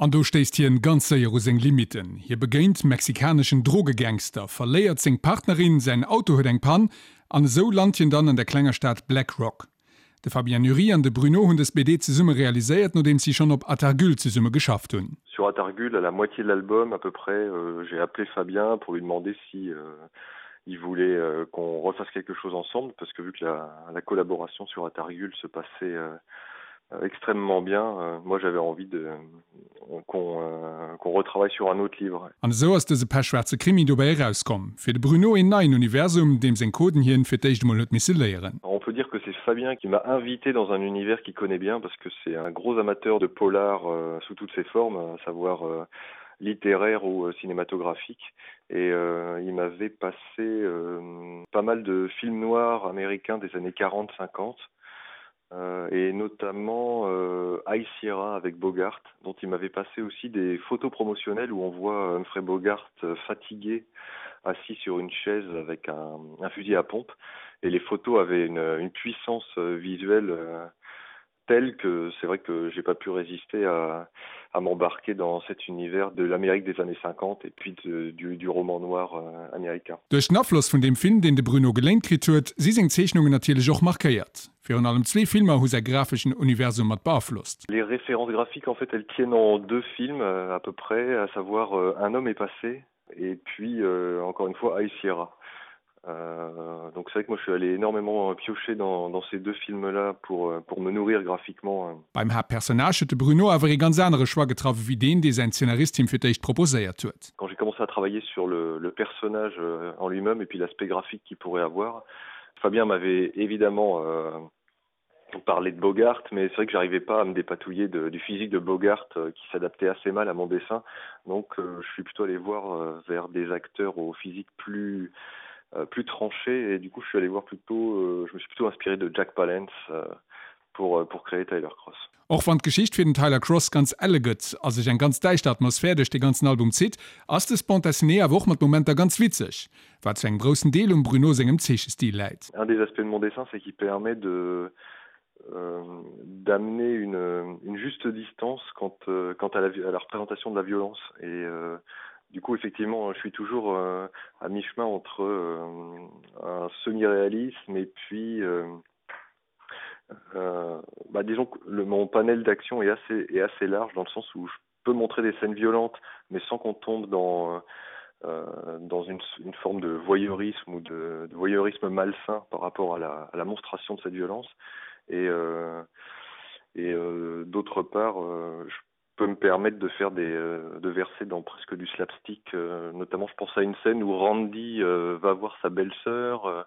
An do stéisst hien ganz séier u seng Limitten. Hie begéint mexikaneschen Drogegangster, verléiert seng Partnerin, säin Auto huet eng Pann an esou lant hien dann an der klenger Stad Black Rock. De Fabien Nury an de Bruno hunn dës BD zesumme realiséiert, nodeems si schonn op Atargul zesumme geschafft hunn. Sur Atargul, à la moitié de l'album à peu près, j'ai appelé Fabien pour lui demander si il voulait qu'on refasse quelque chose ensemble parce que vu que la, la collaboration sur Atargul se passait extrêmement bien, moi j'avais envie de qu'on qu'on retravaille sur un autre livre. An esou ass dëse pechschwaarze Krimi dobäi erauskomm. Fir de Bruno een neien Universum, deem seng Coden hien fir d'éischt emol huet misse léieren. On peut dire que c'est Fabien qui m'a invité dans un univers qu'il connaît bien parce que c'est un gros amateur de polar sous toutes ses formes, à savoir littéraire ou cinématographique et il m'avait passé pas mal de films noirs américains des années 40 50 euh, et notamment euh, High Sierra avec Bogart, dont il m'avait passé aussi des photos promotionnelles où on voit Humphrey Bogart euh, fatigué, assis sur une chaise avec un, un fusil à pompe. Et les photos avaient une, une puissance euh, visuelle euh, telle que c'est vrai que j'ai pas pu résister à, à m'embarquer dans cet univers de l'Amérique des années 50 et puis de, du, du roman noir euh, américain. Duerch den Afloss vun deem Film, deen de Bruno geléint kritt huet, si seng Zeechnungen natierlech och markéiert. Virun allem zwee Filmer hu säi grafeschen Universum mat beaflosst. Les références graphiques en fait elles tiennent en deux films à peu près, à savoir Un homme est passé et puis encore une fois High Sierra. Donc c'est vrai que moi je suis allé énormément piocher dans dans ces deux films là pour pour me nourrir graphiquement. Beim Haaptpersonnage huet de Bruno awer ee ganz anere Choix getraff ewéi deen, dee säin Zeenarist him fir d'éischt proposéiert huet. Quand j'ai commencé à travailler sur le le personnage en lui-même et puis l'aspect graphique qu'il pourrait avoir, Fabien m'avait évidemment parlé de Bogart, mais c'est vrai que j'arrivais pas à me dépatouiller de, du physique de Bogart euh, qui s'adaptait assez mal à mon dessin. Donc euh, je suis plutôt allé voir euh, vers des acteurs au physique plus euh, plus tranché et du coup je suis allé voir plutôt euh, je me suis plutôt inspiré de Jack Palance euh, pour, euh, pour créer Tyler Cross. Och wann d'Geschicht fir den Tyler Cross ganz elle gëtt a sech eng ganz däischter Atmosphär duerch de ganzen Album zitt, ass dës Bande dessinée awer och mat Momenter ganz witzeg, wat zu engem groussen Deel um Bruno sengem Zeechestil läit. Un des aspects de mon dessin, c'est qu'il permet de euh, d'amener une, une juste distance quant, euh, quant à, la, à la représentation de la violence et euh, du coup effectivement je suis toujours euh, à mi-chemin entre euh, un semi-réalisme et puis euh, euh, bah, disons que le, mon panel d'action est assez est assez large dans le sens où je peux montrer des scènes violentes mais sans qu'on tombe dans euh, dans une, une forme de voyeurisme ou de, de voyeurisme malsain par rapport à la, à la monstration de cette violence et euh, et euh, d'autre part euh, je peux me permettre de faire des euh, de verser dans presque du slapstick euh, notamment je pense à une scène où Randy euh, va voir sa belle-sœur euh,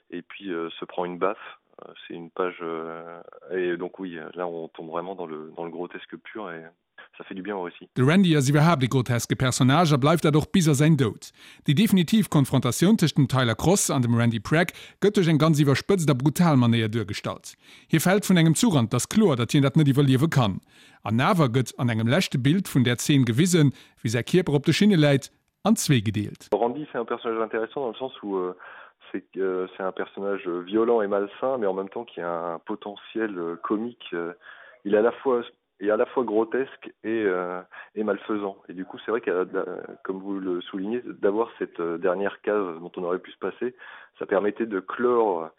et puis euh, se prend une baffe euh, c'est une page euh, et donc oui là on tombe vraiment dans le dans le grotesque pur et ça fait du bien au récit. De Randy ass iwwerhaapt e groteske Personnage a bleift dat och bis a säin Doud. Déi definitiv Konfrontatioun tëscht dem Tyler Cross an dem Randy Pragg gëtt duerch eng ganz iwwerspëtzt a brutal Manéier duergestallt. Hie fält vun engem Zuch an 't ass kloer, datt hien dat net iwwerliewe kann. An awer gëtt an engem leschte Bild vun där Zeen gewisen, wéi säi Kierper op de Schinne läit, an zwee gedeelt. Randy c'est un personnage intéressant dans le sens où c'est c'est un personnage violent et malsain mais en même temps qui a un potentiel comique il est à la fois est à la fois grotesque et euh, et malfaisant et du coup c'est vrai que comme vous le soulignez d'avoir cette dernière case dont on aurait pu se passer ça permettait de clore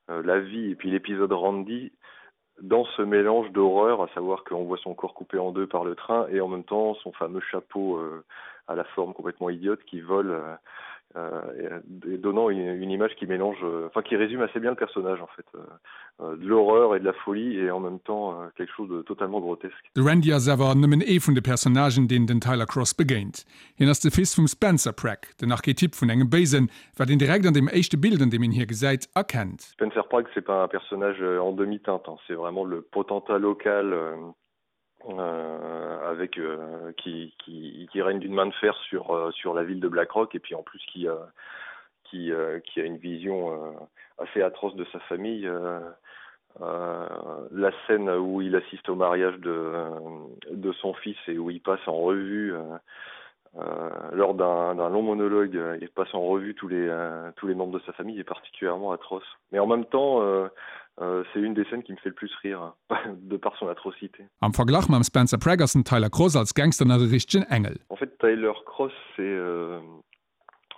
euh, la vie et puis l'épisode Randy dans ce mélange d'horreur à savoir qu'on voit son corps coupé en deux par le train et en même temps son fameux chapeau euh, à la forme complètement idiote qui vole euh, euh, et donnant une, une image qui mélange euh, enfin qui résume assez bien le personnage en fait euh, euh, de l'horreur et de la folie et en même temps euh, quelque chose de totalement grotesque. De Randy ass awer nëmmen ee vun de Personnagen, deen den Tyler Cross begéint. Hien ass de Fils vum Spencer Pragg, den Archetyp vun engem Béisen, wat een direkt an deem éischte Bild, an deem een hie gesäit, erkennt. Spencer Pragg, c'est pas un personnage en demi-teinte, c'est vraiment le potentat local euh, avec euh, qui, qui, qui règne d'une main de fer sur, euh, sur la ville de Blackrock et puis en plus qui, euh, qui, euh, qui a une vision euh, assez atroce de sa famille. Euh, euh, la scène où il assiste au mariage de, de son fils et où il passe en revue euh, euh, lors d'un long monologue, il passe en revue tous les, euh, tous les membres de sa famille est particulièrement atroce. Mais en même temps, euh, Euh, c'est une des scènes qui me fait le plus rire de par son atrocité. Am Verglach mam Spencer Prag ass den Tyler Cross als Gangster nach e richtegen Engel. En fait Tyler Cross c'est euh,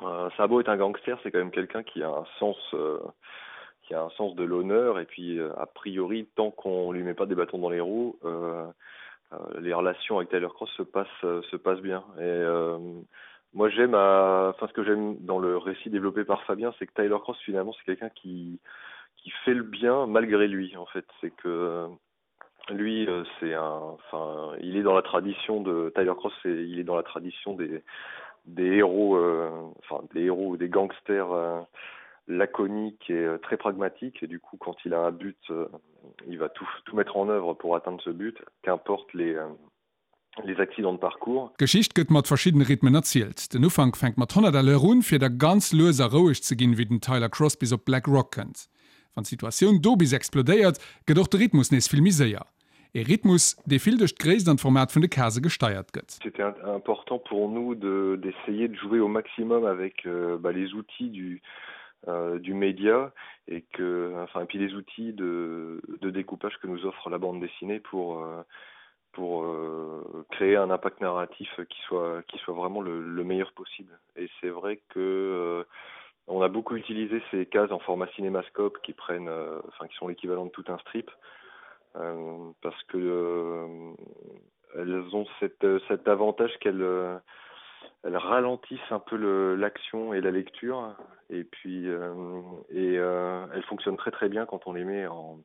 euh, ça a beau être un gangster, c'est quand même quelqu'un qui a un sens euh, qui a un sens de l'honneur et puis euh, a priori tant qu'on lui met pas des bâtons dans les roues, euh, euh, les relations avec Tyler Cross se passent euh, se passent bien et euh, moi j'aime enfin ce que j'aime dans le récit développé par Fabien c'est que Tyler Cross finalement c'est quelqu'un qui qui fait le bien malgré lui en fait c'est que lui euh, c'est un enfin il est dans la tradition de Tyler Cross et il est dans la tradition des des héros euh, enfin des héros ou des gangsters euh, laconique et euh, très pragmatique et du coup quand il a un but euh, il va tout tout mettre en œuvre pour atteindre ce but qu'importe les euh, les accidents de parcours. D'Geschicht gëtt mat verschiddene Rhythmen erzielt. Den Ufank fänkt mat 100 à l'heure un, fir da ganz lues a roueg ze ginn, wéi den Tyler Cross bis op Black Rock kënnt. Wann d'Situatioun do bis explodéiert, gëtt och de Rhythmus nees vill méi séier. Ee Rhythmus, dee vill duerch d'Gréisst an d'Format vun de Case gesteiert gëtt. C'était important pour nous de d'essayer de jouer au maximum avec euh, bah, les outils du, euh, du média et que enfin et puis les outils de, de découpage que nous offre la bande dessinée pour euh, pour euh, créer un impact narratif qui soit qui soit vraiment le, le meilleur possible et c'est vrai que euh, on a beaucoup utilisé ces cases en format cinémascope qui prennent euh, enfin qui sont l'équivalent de tout un strip euh, parce que euh, elles ont cette cet avantage qu'elles euh, elles ralentissent un peu l'action et la lecture et puis euh, et euh, elles fonctionnent très très bien quand on les met en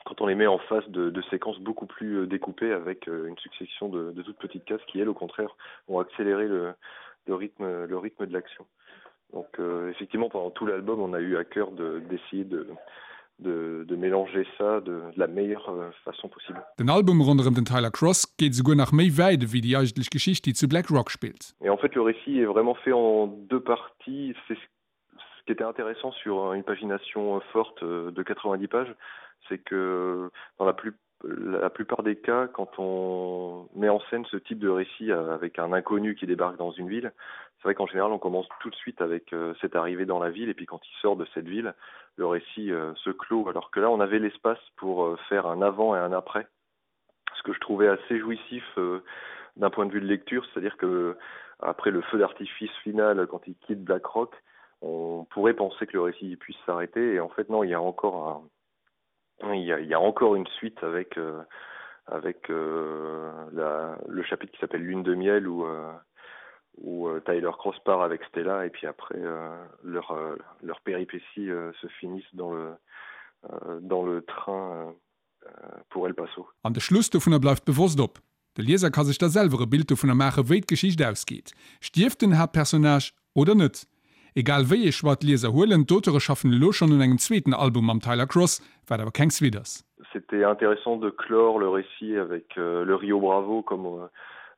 quand on les met en face de, de séquences beaucoup plus euh, découpées avec euh, une succession de, de toutes petites cases qui elles au contraire ont accéléré le, le rythme le rythme de l'action donc euh, effectivement pendant tout l'album on a eu à cœur d'essayer de, de, de mélanger ça de, de la meilleure euh, façon possible. Den Album ronderëm den Tyler Cross geet esouguer nach méi wäit ewéi déi eigentlech Geschicht, déi zu Black Rock spillt. Et en fait le récit est vraiment fait en deux parties c'est ce qui était intéressant sur une pagination euh, forte euh, de 90 pages c'est que dans la plus la plupart des cas quand on met en scène ce type de récit euh, avec un inconnu qui débarque dans une ville c'est vrai qu'en général on commence tout de suite avec cette arrivée dans la ville et puis quand il sort de cette ville le récit se clôt alors que là on avait l'espace pour faire un avant et un après ce que je trouvais assez jouissif d'un point de vue de lecture c'est à dire que après le feu d'artifice final quand il quitte blackrock on pourrait penser que le récit puisse s'arrêter et en fait non il y a encore un il y a, il y a encore une suite avec euh, avec euh, la, le chapitre qui s'appelle lune de miel ou euh, où euh, Tyler Cross part avec Stella et puis après euh, leur euh, leur péripétie euh, se finissent dans le euh, dans le train euh, pour El Paso. An de Schluss dovunner bleift bewosst op. De Lieser ka sech da selwer e Bild dovunner maache wéi d'Geschicht ausgeet. Stierft den Haaptpersonnage oder net? Egal wéi ee Choix d'Lieser huelen, d'Auteure schaffen elo schonn un engem zweeten Album mam Tyler Cross, wat awer keng Suite ass. C'était intéressant de clore le récit avec euh, le Rio Bravo comme euh,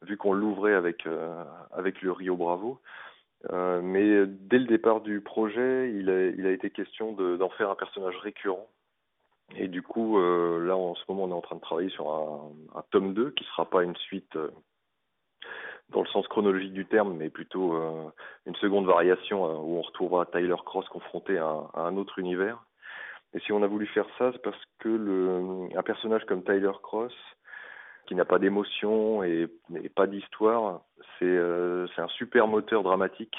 vu qu'on l'ouvrait avec, euh, avec le Rio Bravo. Euh, mais dès le départ du projet, il a, il a été question d'en de, faire un personnage récurrent. Et du coup, euh, là en ce moment, on est en train de travailler sur un, un tome 2 qui sera pas une suite euh, dans le sens chronologique du terme, mais plutôt euh, une seconde variation euh, où on retrouvera Tyler Cross confronté à, à un autre univers. Et si on a voulu faire ça, c'est parce que le, un personnage comme Tyler Cross, qui n'a pas d'émotion et, et pas d'histoire, c'est euh, un super moteur dramatique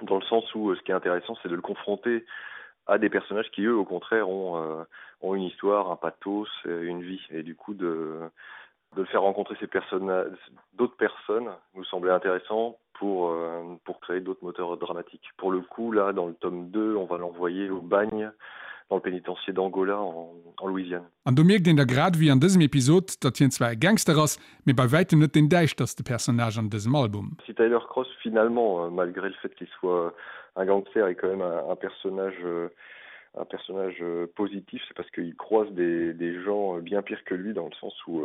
dans le sens où euh, ce qui est intéressant, c'est de le confronter à des personnages qui eux au contraire ont, euh, ont une histoire, un pathos, euh, une vie et du coup de, de le faire rencontrer ces personnes d'autres personnes nous semblait intéressant pour, euh, pour créer d'autres moteurs dramatiques. Pour le coup là dans le tome 2, on va l'envoyer au bagne dans le pénitencier d'Angola en, en Louisiane. An do mierkt een da grad ewéi an dësem Episod, datt hien zwar e Gangster ass, mee bei wäitem net deen däischterste Personnage an dësem Album. Si Tyler Cross finalement, euh, malgré le fait qu'il soit un gangster est quand même un, un personnage euh, un personnage euh, positif, c'est parce qu'il croise des, des gens bien pires que lui dans le sens où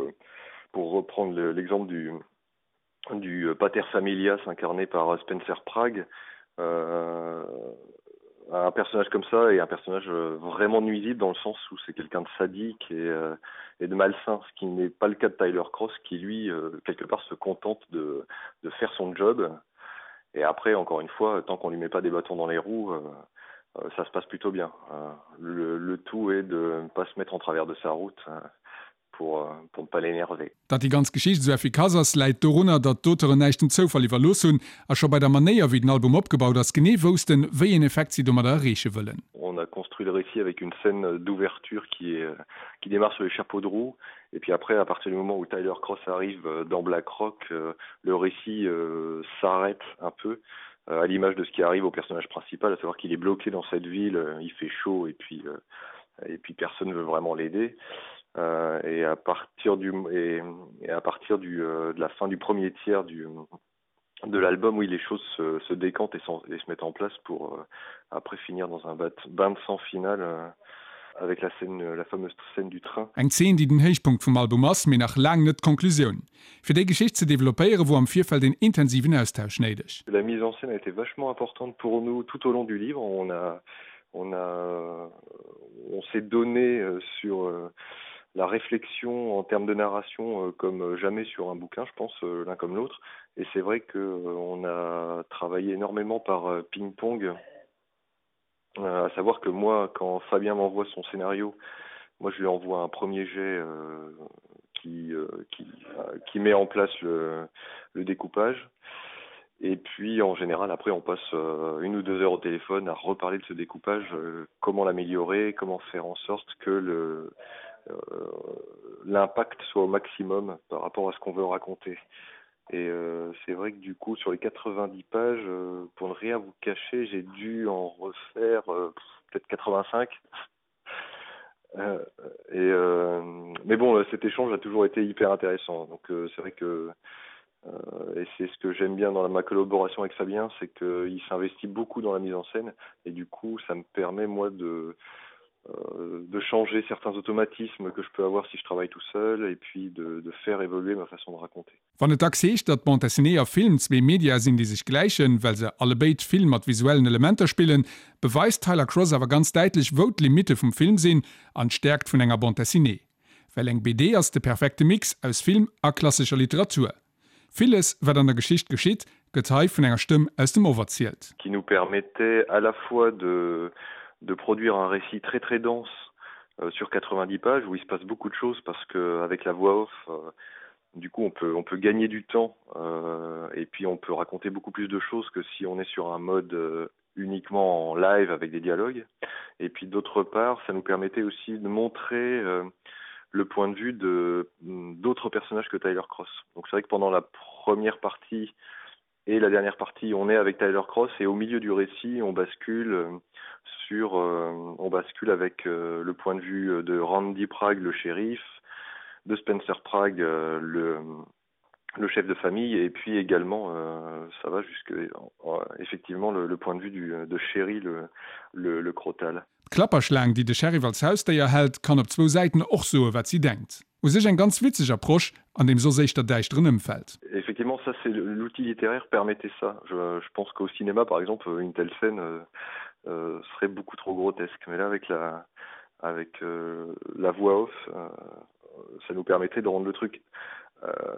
pour reprendre l'exemple du du pater familias incarné par Spencer Prague, euh, un personnage comme ça est un personnage euh, vraiment nuisible dans le sens où c'est quelqu'un de sadique et, euh, et de malsain, ce qui n'est pas le cas de Tyler Cross qui lui euh, quelque part se contente de, de faire son job. Et après encore une fois, tant qu'on lui met pas des bâtons dans les roues, euh, euh, ça se passe plutôt bien. Euh, le, le tout est de ne pas se mettre en travers de sa route euh, pour, euh, pour ne pas l'énerver. Datt déi ganz Geschicht esou effikass ass, läit dorunner, datt d'Auteuren näischt dem Zoufall iwwerlooss hunn a scho bei der Manéier, wéi den Album opgebaut ass, genee woussten, wéi een Effekt si domadder erreeche wëllen. On a construit le récit avec une scène d'ouverture qui est qui démarre sur les chapeaux de roue et puis après à partir du moment où Tyler Cross arrive dans Black Rock, le récit s'arrête un peu à l'image de ce qui arrive au personnage principal, à savoir qu'il est bloqué dans cette ville, il fait chaud et puis et puis personne ne veut vraiment l'aider. Euh, et à partir du et, et à partir du euh, de la fin du premier tiers du de l'album oui les choses se, se décantent et, sont, et se mettent en place pour euh, après finir dans un bat bain de sang final euh, avec la scène la fameuse scène du train. Eng Zeen, déi den Héichpunkt vum Album ass, mee nach laang net d'Konklusioun. Fir déi Geschicht ze developpéiere wor am Virfeld een intensiven Austausch néideg. La mise en scène a été vachement importante pour nous tout au long du livre. On a on a on s'est donné euh, sur euh, la réflexion en termes de narration euh, comme jamais sur un bouquin, je pense l'un comme l'autre. Et c'est vrai que on a travaillé énormément par ping-pong, à savoir que moi quand Fabien m'envoie son scénario, moi je lui envoie un premier jet euh, qui, euh, qui, euh, qui met en place le, le découpage. Et puis en général après on passe euh, une ou deux heures au téléphone à reparler de ce découpage, euh, comment l'améliorer, comment faire en sorte que le euh, l'impact soit au maximum par rapport à ce qu'on veut raconter. Et euh, c'est vrai que du coup sur les 90 pages, euh, pour ne rien vous cacher, j'ai dû en refaire euh, peut-être 85. Euh, et euh, mais bon cet échange a toujours été hyper intéressant donc euh, c'est vrai que euh, et c'est ce que j'aime bien dans la, ma collaboration avec Fabien c'est qu'il s'investit beaucoup dans la mise en scène et du coup ça me permet moi de euh, de changer certains automatismes que je peux avoir si je travaille tout seul et puis de, de faire évoluer ma façon de raconter. Wann et dacks heescht, datt Bande dessinée a Film zwee Media sinn, déi sech gläichen, well se allebéid vill mat visuellen Elementer spillen, beweist Tyler Cross awer ganz däitlech, wou d'Limitte vum Film sinn an d'Stäerkt vun enger Bande dessinée. Well eng BD ass de perfekte Mix aus Film a klassescher Literatur. Villes, wat an der Geschicht geschitt, gëtt hei vun enger Stëmm aus dem Off erzielt. Qui nous permettait à la fois de de produire un récit très très dense euh, sur 90 pages où il se passe beaucoup de choses parce que avec la voix off euh, du coup on peut on peut gagner du temps euh, et puis on peut raconter beaucoup plus de choses que si on est sur un mode euh, uniquement en live avec des dialogues et puis d'autre part ça nous permettait aussi de montrer euh, le point de vue de d'autres personnages que Tyler Cross donc c'est vrai que pendant la première partie et la dernière partie on est avec Tyler Cross et au milieu du récit on bascule euh, sur euh, on bascule avec euh, le point de vue de Randy Prague le shérif de Spencer Prague euh, le le chef de famille et puis également euh, ça va jusque euh, effectivement le, le point de vue du de chéri le le, le crotal. D'Klapperschlaang, déi de Sheriff als Hausdéier hält, kann op zwou Säiten och soe wat si denkt. U sech eng ganz witzeg Approche an deem soss éischter däischteren Ëmfeld. Effectivement, ça c'est l'outil littéraire permettait ça. Je, je pense qu'au cinéma par exemple, une telle scène euh, euh, serait beaucoup trop grotesque. Mais là avec la, avec euh, la voix off, euh, ça nous permettait de rendre le truc euh,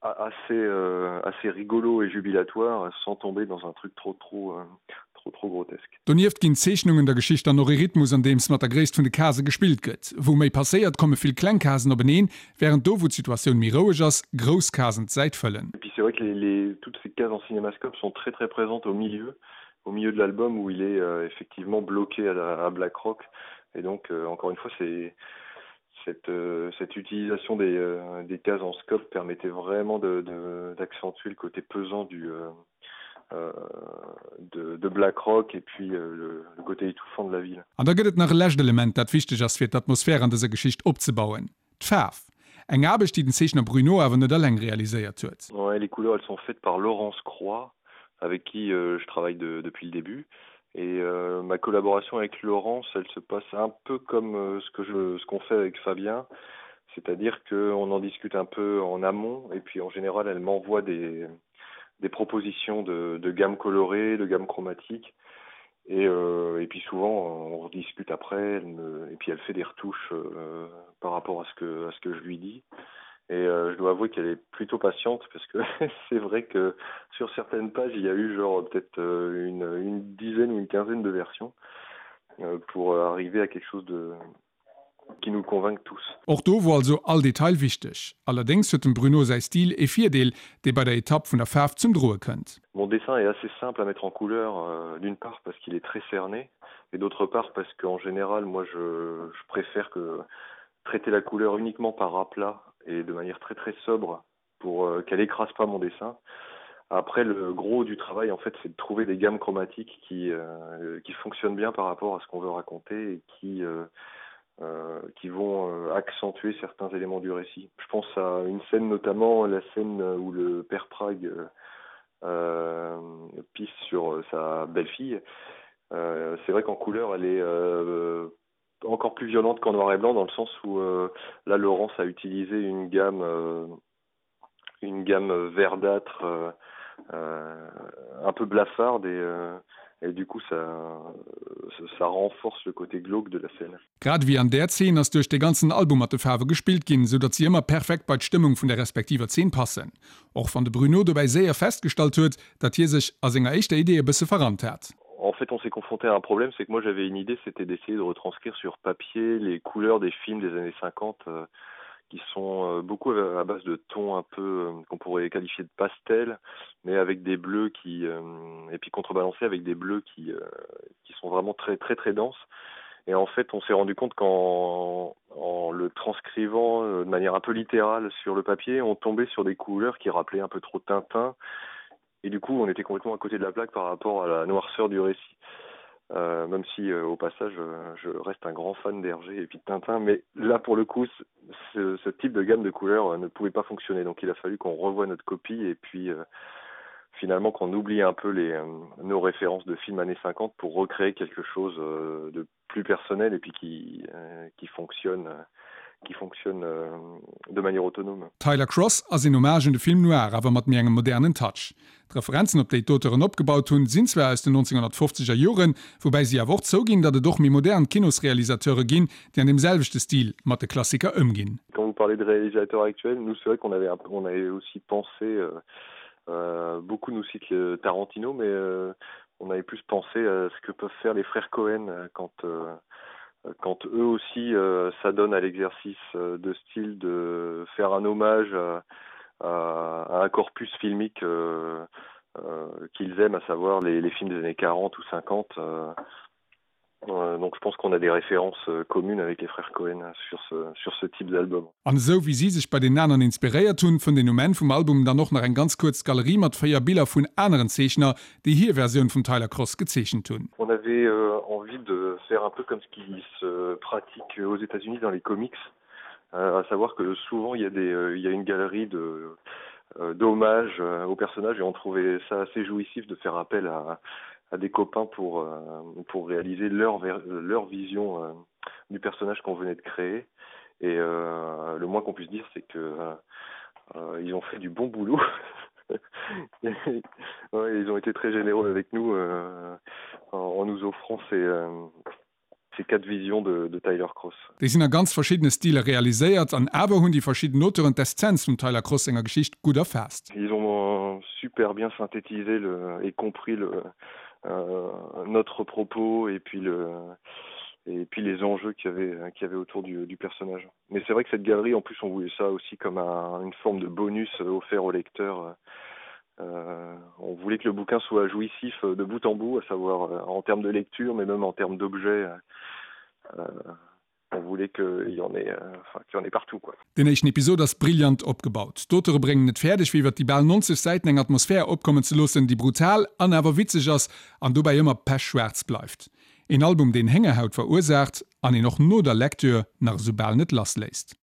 assez, euh, assez rigolo et jubilatoire sans tomber dans un truc trop trop euh, trop trop grotesque. Donieft ginn d'Zeechnungen der Geschicht dann och ee Rhythmus andeems mat der Gréisst vun de Case gespillt gëtt. Wou méi passéiert, komme vill kleng Casen openeen, wärend do wou d'Situatioun méi roueg ass, grouss Casen d'Säit fëllen. Et puis c'est vrai que les, les, toutes ces cases en cinémascope sont très très présentes au milieu, au milieu de l'album où il est euh, effectivement bloqué à, la, à Black Rock. Et donc euh, encore une fois c'est cette, euh, cette utilisation des, euh, des cases en scope permettait vraiment d'accentuer le côté pesant du, euh, euh, de, de Black Rock et puis euh, le, le côté étouffant de la ville. An da gëtt et nach e lescht Element, dat wichteg ass fir d'Atmosphär an dëser Geschicht opzebauen, d'Faarf. Eng Aarbecht, déi den Zeechner Bruno awer net alleng realiséiert huet. Ouais, les couleurs elles sont faites par Laurence Croix, avec qui euh, je travaille de, depuis le début. Et euh, ma collaboration avec Laurence, elle se passe un peu comme euh, ce que je ce qu'on fait avec Fabien, c'est-à-dire qu'on en discute un peu en amont et puis en général elle m'envoie des, des propositions de, de gamme colorée, de gamme chromatique. Et, euh, et puis souvent on rediscute après elle me, et puis elle fait des retouches euh, par rapport à ce que à ce que je lui dis. Et euh, je dois avouer qu'elle est plutôt patiente parce que c'est vrai que sur certaines pages, il y a eu genre peut-être euh, une, une dizaine ou une quinzaine de versions euh, pour arriver à quelque chose de qui nous convainque tous. Och do wor also all Detail wichteg. Allerdéngs huet dem Bruno säi Stil ee Virdeel, dee bei der Etapp vun der Faarf zum Droe kënnt. Mon dessin est assez simple à mettre en couleur, euh, d'une part parce qu'il est très cerné et d'autre part parce qu'en général moi je, je préfère que traiter la couleur uniquement par aplat et de manière très très sobre pour euh, qu'elle écrase pas mon dessin. Après le gros du travail en fait c'est de trouver des gammes chromatiques qui, euh, qui fonctionnent bien par rapport à ce qu'on veut raconter et qui, euh, euh, qui vont euh, accentuer certains éléments du récit. Je pense à une scène notamment la scène où le père Prague euh, euh, pisse sur sa belle-fille. Euh, c'est vrai qu'en couleur elle est euh, encore plus violente qu'en noir et blanc dans le sens où euh, là Laurence a utilisé une gamme euh, une gamme verdâtre euh, euh, un peu blafarde et, euh, et du coup ça, ça renforce le côté glauque de la scène. Grad ewéi an där Zeen ass duerch de ganzen Album mat de Faarwe gespillt ginn, sou datt si ëmmer perfekt bei d'Stëmmung vun der respektiver Zeen passen. Och wann de Bruno dobäi séier festgestallt huet, datt hie sech a senger éischter Idee e bësse verrannt hat. En fait, on s'est confronté à un problème, c'est que moi j'avais une idée, c'était d'essayer de retranscrire sur papier les couleurs des films des années 50 euh, qui sont euh, beaucoup à base de tons un peu euh, qu'on pourrait qualifier de pastel, mais avec des bleus qui euh, et puis contrebalancés avec des bleus qui, euh, qui sont vraiment très très très denses. Et en fait, on s'est rendu compte qu'en en le transcrivant euh, de manière un peu littérale sur le papier, on tombait sur des couleurs qui rappelaient un peu trop Tintin. Et du coup, on était complètement à côté de la plaque par rapport à la noirceur du récit. Euh, même si euh, au passage euh, je reste un grand fan d'Hergé et puis de Tintin, mais là pour le coup ce, ce type de gamme de couleurs euh, ne pouvait pas fonctionner donc il a fallu qu'on revoie notre copie et puis euh, finalement qu'on oublie un peu les euh, nos références de films années 50 pour recréer quelque chose euh, de plus personnel et puis qui euh, qui fonctionne euh, qui fonctionne euh, de manière autonome. Tyler Cross ass een Hommage un de Film noir, awer mat méi engem modernen Touch. D'Referenzen, op déi d'Auteuren opgebaut hunn, sinn zwar aus den 1950 er Joren, woubäi si awer och zouginn, datt et och méi modern Kinosrealisateure ginn, déi an deem selwechte Stil mat de Klassiker ëmginn. Quand vous parlez de réalisateurs actuels, nous c'est vrai qu'on avait un on avait aussi pensé euh, euh, beaucoup nous citent le Tarantino, mais euh, on avait plus pensé à ce que peuvent faire les frères Cohen euh, quand euh, quand eux aussi euh, s'adonnent à l'exercice euh, de style de faire un hommage à, à, à un corpus filmique euh, euh, qu'ils aiment, à savoir les, les films des années 40 ou 50. Euh, euh, donc je pense qu'on a des références euh, communes avec les frères Cohen sur ce, sur ce type d'album. An esou wéi si sech bei den aneren inspiréiert hunn, fënnt een um Enn vum Album dann och nach eng ganz kuerz Galerie mat 4 Biller vun aneren Zeechner, déi hir Versioun vum Tyler Cross gezeechent hunn. On avait euh, envie de faire un peu comme ce qui se pratique aux États-Unis dans les comics, euh, à savoir que souvent il y a des euh, il y a une galerie de euh, d'hommages euh, aux personnages et on trouvait ça assez jouissif de faire appel à, à des copains pour, euh, pour réaliser leur, leur vision euh, du personnage qu'on venait de créer. Et euh, le moins qu'on puisse dire, c'est que euh, euh, ils ont fait du bon boulot. ouais, ils ont été très généreux avec nous euh, en, en nous offrant ces, euh, ces quatre visions de, de Tyler Cross. Déi sinn a ganz verschiddene Stiler realiséiert an awer hunn déi verschidden Auteuren d'Essenz vum Tyler Cross senger Geschicht gutt erfaasst. Ils ont euh, super bien synthétisé le, et compris le, euh, notre propos et puis le et puis les enjeux qu'il y avait qu'il y avait autour du, du personnage. Mais c'est vrai que cette galerie en plus on voulait ça aussi comme un, une forme de bonus offert au lecteur. Euh, on voulait que le bouquin soit jouissif de bout en bout, à savoir euh, en termes de lecture, mais même en termes d'objets. Euh, on voulait qu'il y en ait, euh, enfin, qu'il y en ait partout quoi. Den éischten Episod ass brillant opgebaut. D'Auteure bréngen et fäerdeg, fir iwwer déi bal 90 Säiten eng Atmosphär opkommen ze loossen, déi brutal an awer witzeg ass an dobäi ëmmer pechschwaarz bleift. Een Album, deen Héngerhaut verursaacht an een och no der Lecture nach esou bal net lassléisst.